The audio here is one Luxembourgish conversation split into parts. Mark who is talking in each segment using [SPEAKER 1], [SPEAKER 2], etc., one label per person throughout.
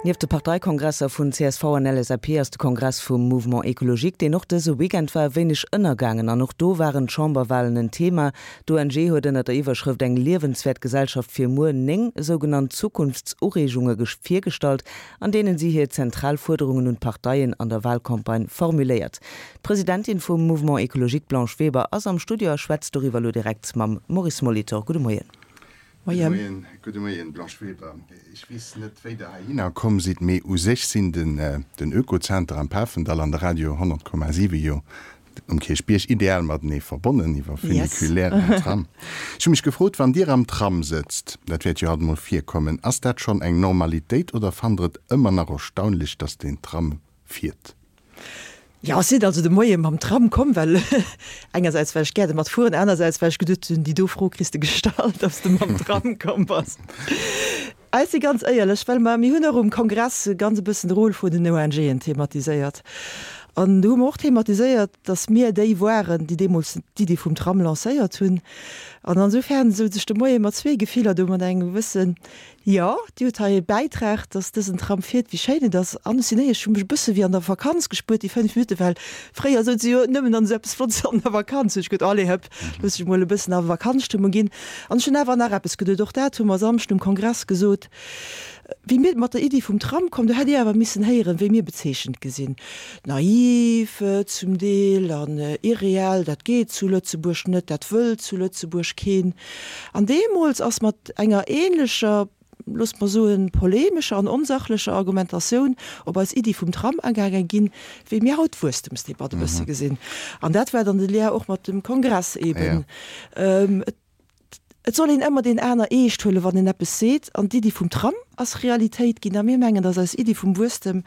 [SPEAKER 1] Nieft de Parteikongresser vun csv an LSAP ass de Kongress vum Mouvement Ecologique, deen och dëse Weekend war, e wéineg ënnergaangen. An och do waren d'Chamberwalen en Thema. D'ONG huet ënner der Iwwerschrëft Eng liewenswäert Gesellschaft fir muer 9 sougenannt Zukunftsureegunge virgestallt, an deenen si hir zentral Fuerderungen un d'Parteien an der Walcampagne formuléiert. D'Presidentin vum Mouvement Ecologique Blanche Weber ass am Studio a schwätzt doriwwer elo direkt mam Maurice Molitor. Gudde Moien.
[SPEAKER 2] Gudde Moien. Gudde Moien, Blanche Weber. Ech weess net, wéi Der heihinner komm sidd, mee u sech sinn den Oekozenter am Pafendall an de Radio 100,7 jo um Kierchbierg ideal matenee verbonnen iwwer Funiculaire an Tram. Ech hu mech gefrot, wann Dir am Tram sëtzt, dat wäert jo alt emol virkommen, ass dat schonn eng Normalitéit oder fannt Der et ëmmer nach erstaunlech, dass den Tram fiert?
[SPEAKER 3] Jo, ech sinn also de Moie mam Tram komm, well engersäits well ech gär domat fueren, anersäits well ech geduet hunn, déi do Fro kriss de gestallt, ob s de mam Tram komm bass. Ech si ganz éierlech, well mer, mir hunn och um Kongress ganz e bëssen de Rôle vun den ONGen thematiséiert. An do hu mer och thematiséiert, datt mir déi waren, déi deemools d'Iddi vum Tram lancéiert hunn. An ansoufern souz ech de Moie mat zwee Gefiller do, mat engem gewëssen Jo, Dir hutt hei e Bäitrag, dass dësen Tram fiert, wéi schéin et ass. An ech sinn éierlech, ech hu mech e bësse wéi an der Vakanz gespuert, déi 5 Minutten, well fréier souz se jo nëmmen an esou eppes Flottes an der Vakanz. Hunn ech geduet, allez hëpp, looss ech mol e bëssen a Vakanzstëmmung ginn. An ech hunn awer nach eppes geduet, och dat hu mer Samschden um Kongress gesot, Wéi mir mat der Iddi vum Tram komm, do hätt Dir awer missen héieren, wéi mir bezeechent gi sinn, naiv zum Deel an irreell, dat geet zu Lëtzebuerg net, dat wëll zu Lëtzebuerg keen. An deemools ass mat enger ähnlecher, loosst mer soen, polemescher an onsachlecher Argumentatioun op eis Iddi vum Tram agaange ginn, wéi mir haut d'Wuesstemsdebatt e bësse gesinn. An dat war dann de Lien och mat dem Kongress eeben. Et soll een ëmmer deen aner eescht huelen, wann en eppes seet. An d'Iddi vum Tram ass Realitéit ginn. A mir mengen, datt eis Iddi vum Wuesstem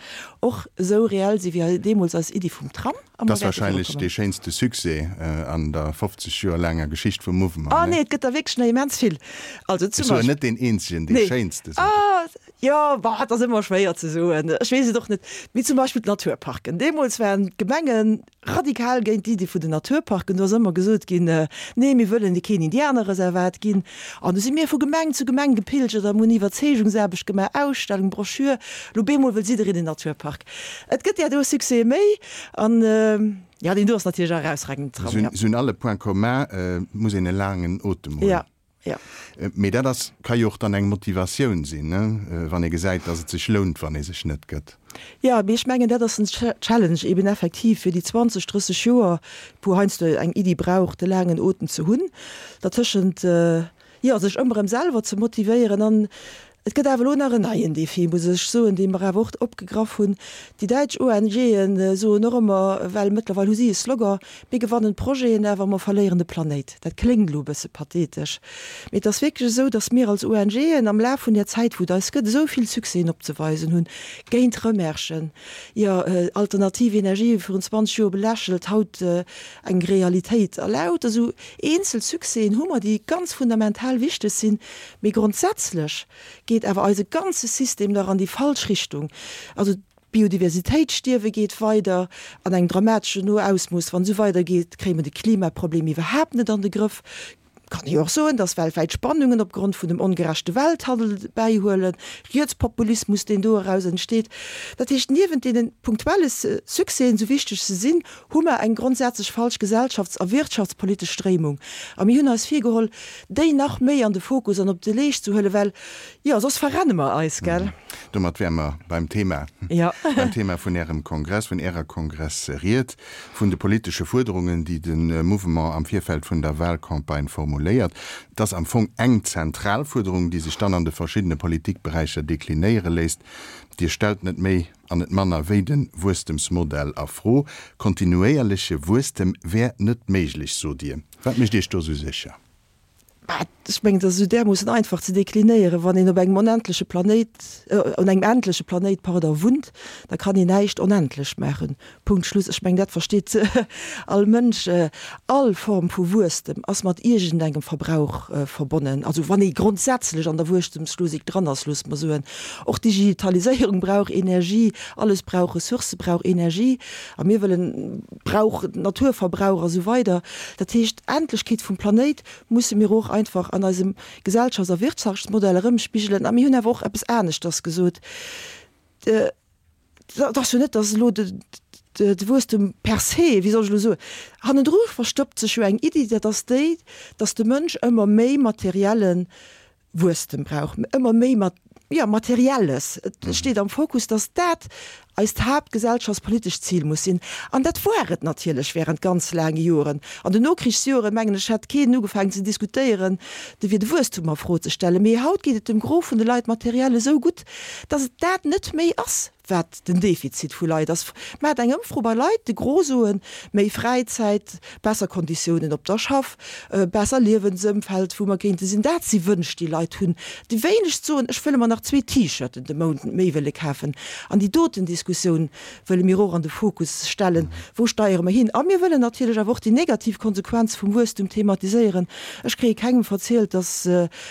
[SPEAKER 3] och esou reell si wéi deemools eis Iddi vum Tram.
[SPEAKER 2] A mer wäerte virukommen. Dat ass wahrscheinlech dee schéinste Succès an der 50 Joer laanger Geschicht vum Mouvement,
[SPEAKER 3] ne? Oh nee, et gëtt der wierklech nach immens vill.
[SPEAKER 2] Also zum Ech soen net deen eenzegen, dee schéinste
[SPEAKER 3] sot ech. Jo, bah, et ass ëmmer schwéier ze soen. Ech weess et och net. Mee zum Beispill d'Naturparken. Deemools waren d'Gemenge radikal géint d'Iddi vun den Naturparken. Do ass ëmmer gesot ginn, Nee, mir wëllen keen Indianerreservat ginn. An du si mir vu Gemeng zu Gemeng gepilgert an hunn Iwwerzeegungsaarbecht gemaach, Ausstellung, Broschür. Lo bemol wëll jiddereen en Naturpark. Et gëtt där do Succèse méi. An, jo, deen do ass natierlech e erausragenden
[SPEAKER 2] Tram, jo. Se hunn all e Point commun, et muss een e laangen Otem hunn.
[SPEAKER 3] Jo, jo.
[SPEAKER 2] Mee dat ass, ka jo och dann eng Motivatioun sinn, ne, wann ee gesäit, datt et sech lount, wann ee sech net gëtt.
[SPEAKER 3] Jo, mee ech mengen, dat ass den Challenge eben effektiv fir déi 20, 30 Joer, wou heiansdo eng Iddi brauch, de laangen Otem ze hunn, dertëschent, jo, sech ëmmer erëm selwer ze motivéieren. An et gëtt awer elo nach en neien Défi, muss ech soen, dee mer awer och opgegraff hunn. Déi däitsch ONGe soen och ëmmer, well mëttlerweil hu si e Slogan, Mir gewannen d'Projeten, awer mer verléieren de Planéit. Dat kléngt elo e bësse pathetesch, mee et ass wierklech esou, datt mir als ONGen am Laf vun där Zäit, wou et eis gëtt, esou vill Succèsen opzeweisen hunn, géint Remerschen, jo, alternativ Energië virun 20 Joer belächelt, haut eng Realitéit. A lauter esou eenzel Succèsen hu mer, déi ganz fundamental wichteg sinn, mee grondsätzlech geet awer eise ganze System nach an déi falsch Richtung. Also d'Biodiversitéitsstierwe geet weider an engem dramateschen Ausmooss. Wann esou weidergeet, kréie mer de Klimaproblem iwwerhaapt net an de Grëff. Kann ee jo och soen, dass weltwäit Spannungen opgrond vun dem ongerechte Welthandel bäihuelen, Rietspopulismus, deen do eraus entsteet. Dat heescht, niewent deene punktuelle Succèsen, esou wichteg se sinn, hu mer eng grondsätzlech falsch gesellschafts a wirtschaftspolitesch Stréimung. A mir hunn eis virgeholl, déi nach méi an de Fokus an op de Leescht ze huelen, well, jo, soss verrenne mer eis, gell?
[SPEAKER 2] Domat wäre mer beim Thema, beim Thema vun Ärem Kongress, vun Ärer Kongressried, vun de politesche Fuerderungen, déi de Mouvement am Virfeld vun der Wahlcampagne formuléiert. Et ass am Fong eng zentral Fuerderung, déi sech dann an de verschiddene Politikberäicher deklinéiere léisst, Dir stellt net méi an net manner wéi de Wuesstemsmodell a Fro. Kontinuéierleche Wuesstem wär net méiglech, sot Dir. Wat mécht Iech do esou sécher?
[SPEAKER 3] Bah, ech mengen, dat ass esou därmoossen einfach ze deklinéieren. Wann een op engem onendleche Planéit, un engem endleche Planéit, pardon, wunnt, da kann een näischt onendlech maachen. Punkt, Schluss. Ech mengen, dat versteet all Mënsch. All Form vu Wuesstem ass mat iergendengem Verbrauch verbonnen. Also wann ee grondsätzlech an der Wuesstemslogik dran ass, loosse mer soen. Och d'Digitaliséierung brauch Energie, alles brauch Ressourcë, brauch Energie. A mir wëllen, brauch Naturverbrauch a sou weider. Dat heescht, d'Endlechkeet vum Planéit musse mir och einfach an eisem Gesellschafts a Wirtschaftsmodell erëmspigelen. A mir hunn awer och eppes aneschters gesot. Et ass jo net, datt elo de Wuesstem per se, wéi soll ech elo soen, hannendru verstoppt sech jo eng Iddi, dat ass déi, datt de Mënsch ëmmer méi materielle Wuesstem brauch, ëmmer méi jo, Materielles. Et steet am Fokus, datt dat eist haaptgesellschaftspolitescht Zil muss sinn. An dat war et natierlech während ganz laange Joren. An den Nokrichsjoren, mengen ech, hätt keen ugefaangen ze diskutéieren, de wier de Wuesstum a Fro ze stellen. Mee haut geet et dem Gros vun de Leit materiell esou gutt, datt et dat net méi ass, wat den Defizit vu Leit ass. Maacht eng Ëmfro bei Leit, de Gros soen, méi Fräizäit, besser Konditiounen op der Schaff, besser Liewensëmfeld, wou mer kéinte sinn. Dat si Wënsch, déi Leit hunn. Déi wéinegst soen, ech wëlle mer nach zwee T-Shirten de Mount méi wëlle kafen. An déi doten Diskussioun wëlle mir och an de Fokus stellen, Wou steiere mer hin? A mir wëllen natierlech awer och déi negativ Konsequenz vum Wuesstum thematiséieren. Ech kréie kengem verzielt, dass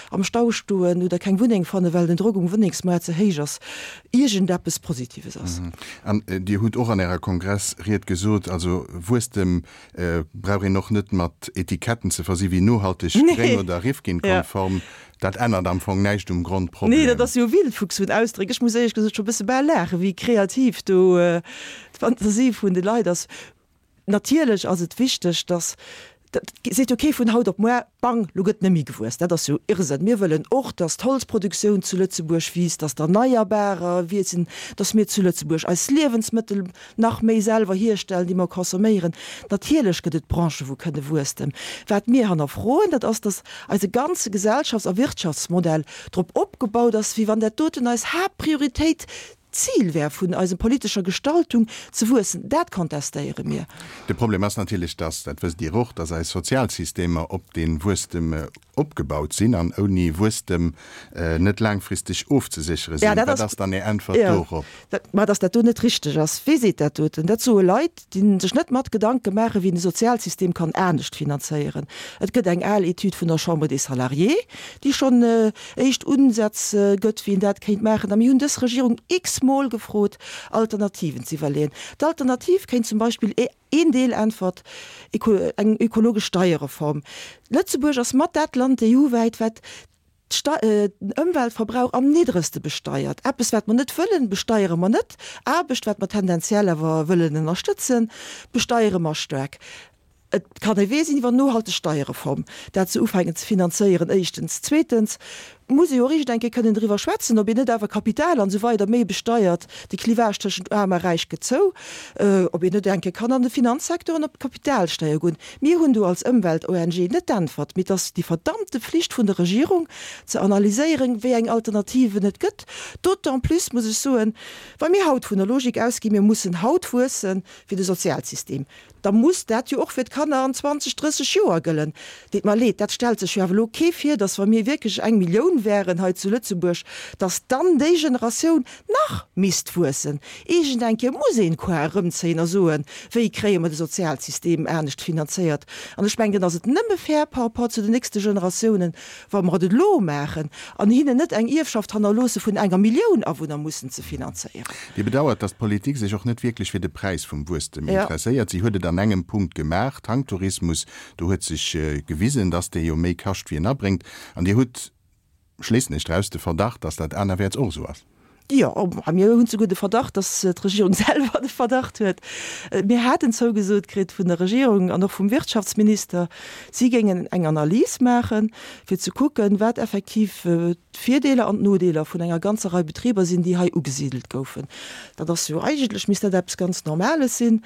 [SPEAKER 3] am Stau stoen oder keng Wunneng fannen, well den Drock um Wunnengsmaart ze héich ass, iergendeppes Positives ass.
[SPEAKER 2] An Dir hutt och an Ärer Kongressried gesot, also Wuesstem brauch een och net mat Etiketten ze versi wéi nohalteg, gréng oder Rifkin-konform. Dat ännert am Fong näischt um Grondproblem.
[SPEAKER 3] Nee, dat ass jo Wildfuchs vun Ausdréck. Ech muss éierlech gesot scho bësse bal laachen, wéi kreativ do d'Fantasie vun de Leit ass. Natierlech ass et wichteg, dass, dat seet jo kee vun haut op muar, bang, lo gëtt net méi gewuess. Dat ass jo Irrsënn. Mir wëllen och, dass d'Holzproduktioun zu Lëtzebuerg wiisst, dass d'Erneierbarer wiessen, dass mir zu Lëtzebuerg eis Liewensmëttel nach méi selwer hierstellen, déi mer consomméieren. Natierlech gëtt et Branchen, wou kënne wuesstem. Wat mir hannerfroen, dat ass, dass eise ganze Gesellschafts a Wirtschaftsmodell drop opgebaut ass, wéi wann dat doten eis Haaptprioritéit D'Zil wär vun eisem politescher Gestaltung ze wuessen, dat kontestéiere mir.
[SPEAKER 2] De Problem ass natierlech, dass, dat wësst Dir och, dass eis Sozialsystemer op dee Wuesstem opgebaut sinn an ouni Wuesstem net laangfristeg ofzeséchere sinn. Wat ass dann Är Äntwert dorop?
[SPEAKER 3] Ma dass dat do net richteg ass. Wee seet dat doten? Dat soe Leit, déi sech net mat Gedanke maachen, wéi een de Sozialsystem kann anescht finanzéieren. Et gëtt eng al Etüd vun der Chambre des Salariés, déi schonn éischt Unsätz gëtt, wéi een dat kéint maachen. A mir hunn dës Regierung x-mol gefrot, Alternativen ze iwwerleeën. D'Alternativ kéint zum Beispill een Deel äntwert, eng ökologesch Steierreform. Lëtzebuerg ass mat dat Land EU-wäit, wat den Ëmweltverbrauch am niddregste besteiert. Eppes, wat mer net wëllen, besteiere mer net. Aarbecht, wat mer tendenziell awer wëllen ënnerstëtzen, besteiere mer staark. Et kann e Wee sinn iwwer nohalteg Steierreform, dat se ufänken ze finanzéieren, éischtens. Zweetens muss ee jo och iergend eng Kéier kënnen driwwer schwätzen, ob een net awer Kapital an esou weider méi besteiert, de Clivage tëschent Aarm a Räich gëtt zou, ob een net eng Kéier kann an de Finanzsecteur an op d'Kapitalsteier goen. Mir hunn do als Ëmwelt-ONG net d'Äntwert, mee et ass déi verdammte Pflicht vun der Regierung ze analyséieren, wéi eng Alternativen et gëtt. D'autant plus muss ech soen, wa mir haut vun der Logik ausginn, mir mussen haut wuessen fir de Sozialsystem, da muss dat jo och fir d'Kanner an 20, 30 Joer gëllen. Deet mer leed, dat stellt sech jo awer elo kee vir, datt wa mir wierklech eng Millioun wären hei zu Lëtzebuerg, datt dann déi Generatioun nach misst wuessen. Iergend eng Kéier muss een d'Koar erëmzéien a soen, wéi kréie mer de Sozialsystem anescht finanzéiert. An ech mengen, dann ass et nëmme fair par rapport zu den nächste Generatiounen, wa mer et elo maachen an hinnen net eng Ierfschaft hannerloosse vun enger Millioun Awunner mussen ze finanzéieren.
[SPEAKER 2] Dir bedauert, datt d'Politik sech och net wierklech fir de Präis vum Wuesstem interesséiert. Si huet et an engem Punkt gemaach, Tanktourismus. Do huet sech gewisen, datt dee jo méi kascht wéi en abréngt. An Dir hutt, schléissen ech draus, de Verdacht, datt dat anerwäerts och esou ass.
[SPEAKER 3] Jo, a mir hunn souguer de Verdacht, datt d'Regierung selwer de Verdacht huet. Mir haten zougesot kritt vun der Regierung an och vum Wirtschaftsminister, si géingen eng Analys maachen, fir ze kucken, wat effektiv d'Virdeeler an d'Nodeeler vun enger ganzer Rei Betriber sinn, déi hei ugesidelt goufen. Dat ass jo eigentlech, misst dat eppes ganz Normales sinn.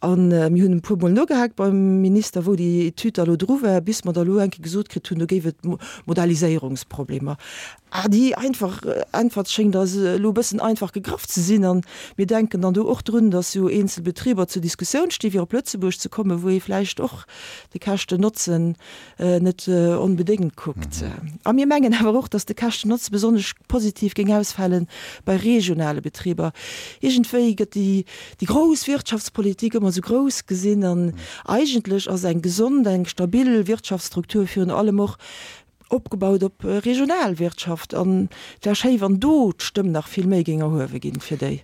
[SPEAKER 3] A mir hunn e puermol nogehaakt beim Minister, wou déi Etüd da elo dru war, bis mer da elo eng Kéier gesot kritt hunn, do géif et Modelliséierungsproblemer. Ah, déi einfach Äntwert schéngt eis elo e bëssen einfach gegraff ze sinn. A mir denken dann do och drun, datt jo eenzel Betriber zur Diskussioun sti fir op Lëtzebuerg ze kommen, wou ee vläicht och de Käschten-Notzen net onbedéngt kuckt. A mir mengen awer och, datt de Käschten-Notze besonnesch positiv géing ausfale bei regionale Betriber. Iergendwéi gëtt déi grouss Wirtschaftspolitik ëmmer esou grouss gesinn an eigentlech ass eng gesond, eng stabil Wirtschaftsstruktur virun allem och Opgebaut op Regionalwirtschaft an et wär schéi wann do d'Stëmm nach vill méi géing erhuewe ginn fir déi.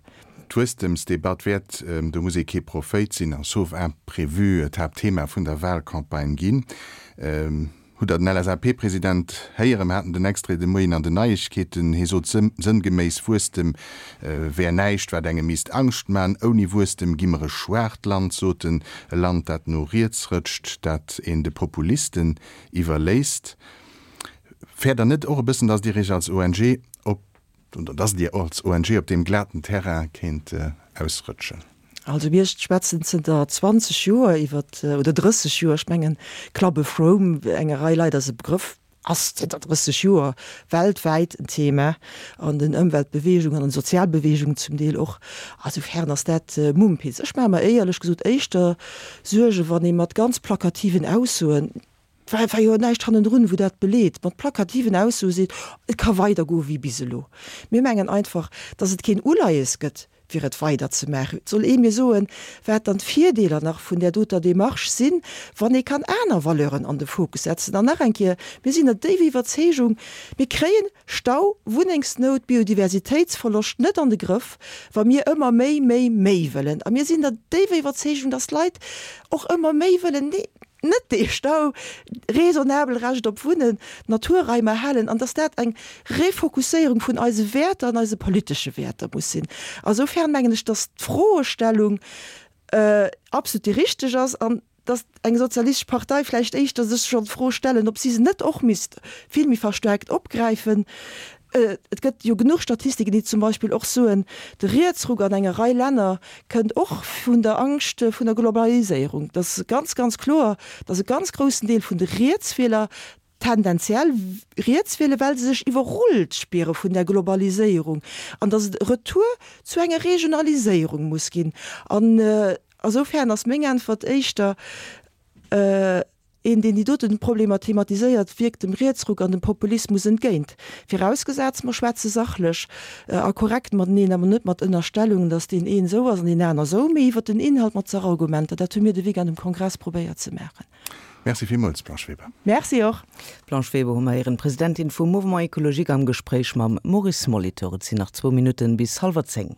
[SPEAKER 2] D'Wuesstemsdebatt wäert, do muss ee kee Prophéit sinn, a sauf imprévu d'Haaptthema vun der Wahlcampagne ginn. Hutt Der den LSAP-President héieren? Mer haten den Extrait de Moien an den Neiegkeeten. Hie sot sënngeméiss, Wuesstem wär näischt, wat engem misst Angscht man. Ouni Wuesstem gi mer e schwaacht Land, sot en. E Land, dat no riets rëtscht, dat een de Populisten iwwerléisst. Fäert Der net och e bëssen, datt Dir Iech als ONG op Oder dass Dir als ONG op deem glaten Terrain kéint ausrëtschen?
[SPEAKER 3] Also mir schwätzen zënter 20 Joer iwwer, oder 30 Joer, ech mengen Club of Rome, enger Rei Leit ass e Begrëff, ass zënter 30 Joer weltwäit en Thema an den Ëmweltbeweegungen, an den Sozialbeweegungen zum Deel och. Asoufern ass dat Mumpitz. Ech maache mer éierlech gesot éischter Suergen, wann ee mat ganz plakativen Aussoen, Et war jo näischt hannendrun, wou dat beleet, mat plakativen Aussoe seet, et ka weidergoe wéi bis elo. Mir mengen einfach, datt et keen Uleies gëtt, fir et weiderzemaachen. Et soll ee mir soen, wat dann d'Virdeeler nach vun där doter Démarche sinn, wann ee kann aner Valeuren an de Fokus setzen. An nach eng Kéier, Mir sinn der déiwer Iwwerzeegung, mir kréien Stau, Wunnengsnout, Biodiversitéitsverloscht net an de Grëff, wa mir ëmmer méi, méi, méi wëllen. A mir sinn der déiwer Iwwerzeegung, datt d'Leit och ëmmer méi wëllen. Net dee Stau, raisonnabel Recht op Wunnen, Naturraim erhalen, an dass dat eng Refokusséierung vun eise Wäerter an eise politesche Wäerter muss sinn. A soufern mengen ech, dass d'Froestellung absolut déi richteg ass an dass eng sozialistesch Partei vläicht éischter sech soll d'Fro stellen, ob si se net och misst vill méi verstärkt opgräifen. Et gëtt jo genuch Statistiken, déi zum Beispill och soen, de Rietsruck an enger Rei Länner kënnt och vun der Angscht vun der Globaliséierung. Et ass ganz, ganz kloer, datt e ganz groussen Deel vun de Rietswieler tendenziell riets wielen, well se sech iwwerrullt spiere vun der Globaliséierung an datt et e Retour zu enger Regionaliséierung muss ginn. An asoufern ass meng Äntwert éischter, Een, deen déi doten Problemer thematiséiert, wierkt dem Rietsruck an dem Populismus entgéint. Virausgesaz, mer schwätze sachlech a korrekt mateneen, awer net mat Ënnerstellungen, datt deen een esou ass an deen aner esou, mee iwwer den Inhalt mat Sachargumenter. Dat hu mir de Weekend um Kongress probéiert ze maachen.
[SPEAKER 2] Merci villmools, Blanche Weber.
[SPEAKER 3] Merci och.
[SPEAKER 1] D'Blanche Weber hu mer héieren, Presidentin vum Mouvement Ecologique am Gespréich mam Maurice Molitor. Et sinn nach zwou Minutten bis hallwer 10.